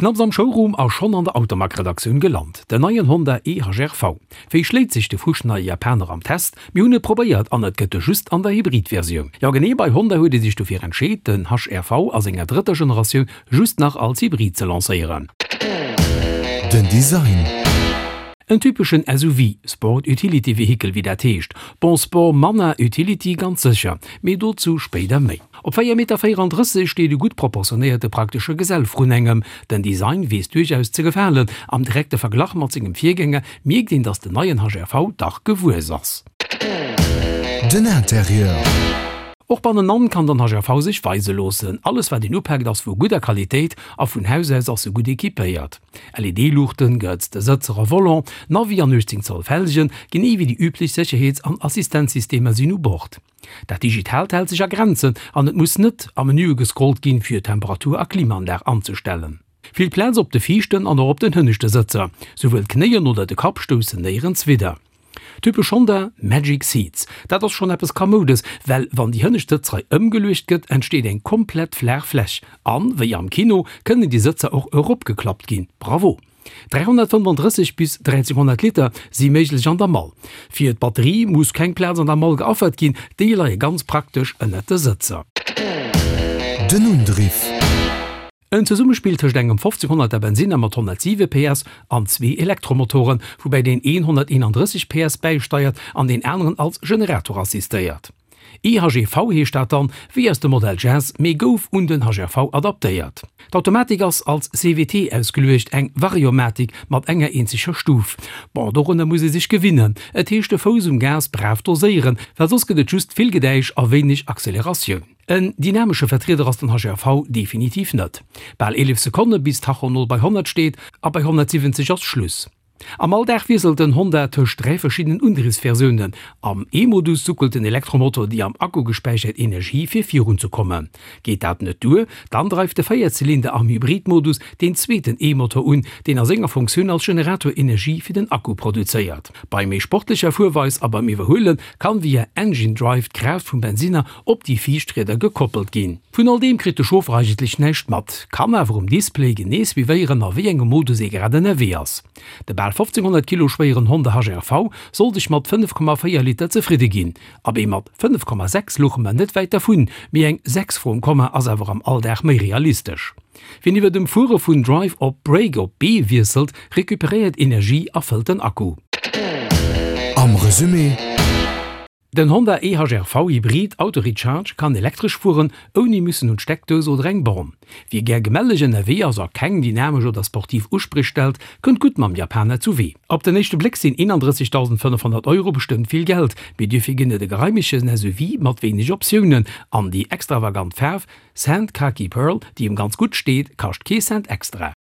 Knapps am Showroom a schonn an der Automag-Redaktioun gelant, den neien Honda e-HR-V. Wéi schléit sech de fuschneie Japaner am Test? Mir hunn et probéiert an et gëtt e just an der Hybrid-Versioun. Jo genee, bei Honda huet ee sech dofir entscheet, den HR-V a senger drëtter Generatioun just nach als Hybrid ze lancéieren. Den Design. En typeschen SUV, Sport Utility Vehicle wéi dat heescht. Bon, Sport manner, Utility ganz sécher, mee dozou spéider méi. Op 4 Meter 34 steet e gutt proportionéierte praktesche Gesell vrun engem. Den Design weess duerchaus ze gefalen. Am direkte Verglach mat sengem Virgänger mierkt een, datt den neien HRV dach gewuess ass. Den Interieur. Och bannenan kann den HRV sech weise loossen. Alles wat een upaakt ass vu gudder Qualitéit a vun Haus aus ass e gutt equipéiert. LED-Luuchten, gehëtzte Sëtzer a Volant, Navi an 18 Zoll Felgen, genee wéi déi üblech Sécherheets an Assistenzsystemer sinn u Bord. Dat Digitaalt hält sech a Grenzen an et muss net a Menüe gescrollt ginn, fir Temperatur a Klimaanlag anzestellen. Vill Plaz op de viischten an och op den hënneschte Sëtzer, souwuel d'Knéien oder de Kapp stoussen néierens widder. Typesch Honda, Magic Seats. Dat ass schonn eppes Kamoudes, well wann déi hënnescht Sëtzrei ëmgeluecht gëtt, entsteet eng komplett flaach Fläch. An, wéi am Kino, kënnen déi Sëtzer och eropgeklappt ginn. Bravo! 335 bis 1300 Liter si méiglech an der Mall. Fir d'Batterie muss keng Plaz an der Mall geaffert ginn, déi leie ganz praktesch ënnert de Sëtzer. Den Undriff. En Zesummespill tëscht engem 1500 er Bensinner mat 107 PS an zwee Elektromotoren, woubäi deen een 131 PS bäisteiert an deen aneren als Generator assistéiert. EHEV heescht dat dann, wéi aus dem Modell Jazz, mee gouf un den HRV adaptéiert. D'Automatik ass als CVT ausgeluecht, eng Variomatik mat enger eenzeger Stuf. Bon, dorunner muss ee sech gewinnen. Et heescht de Fouss um Gas brav doséieren, well soss gëtt et just vill Gedäisch a wéineg Acceleratioun. En dynamesche Vertrieder ass den HRV definitiv net. Bal 11 Sekonne bis Tacho 0 bei 100 steet a bei 170 ass Schluss. Am Alldag wiesselt den Honda tëscht 3 verschiddenen Undriwwsversiounen. Am E-Modus suckelt den Elektromotor déi am Akku gespäichert Energie fir virun ze kommen. Geet dat net duer, dann dreift de Véierzylinder am Hybrid-Modus deen zweeten E-Motor un, deen a senger Funktioun als Generator Energie fir den Akku produzéiert. Bei méi sportlecher Fuerweis a beim Iwwerhuele kann via Engine Drive d'Kraaft vum Bensinner op déi viischt Rieder gekoppelt ginn. Vun all deem kritt de Chauffer eigentlech näischt mat, kann awer um Display genee suivéieren a wéi engem Modus ee grad ënnerwee ass. De bal 1500 Kilo schwéieren Honda HR-V soll sech mat 5,4 Liter zefridde ginn. Abee mat 5,6 louche mer net wäit dervun, mee eng 6 vrum Komma ass awer am Alldag méi realistesch. Wien iwwer dem Fuere vun Drive op Brake op B wiesselt, recuperéiert Energie a fëllt den Akku. Am Resumé. Den Honda e-HR-V Hybrid Auto Recharge kann elektresch fueren, ouni müssen un d'Steckdous oder eng Born. Wie gär gemelleg ënnerwee ass a keng dynamesch oder sportiv Uspréch stellt, kënnt gutt mam Japaner zu Wee. Op den éischte Bléck sinn 31.500 Euro bestëmmt vill Geld, mee duerfir ginn et e geraimegen SUV mat wéineg Optiounen an déi extravagant Faarf Sand Khaki Pearl, déi em ganz gutt steet, kascht kee Cent extra.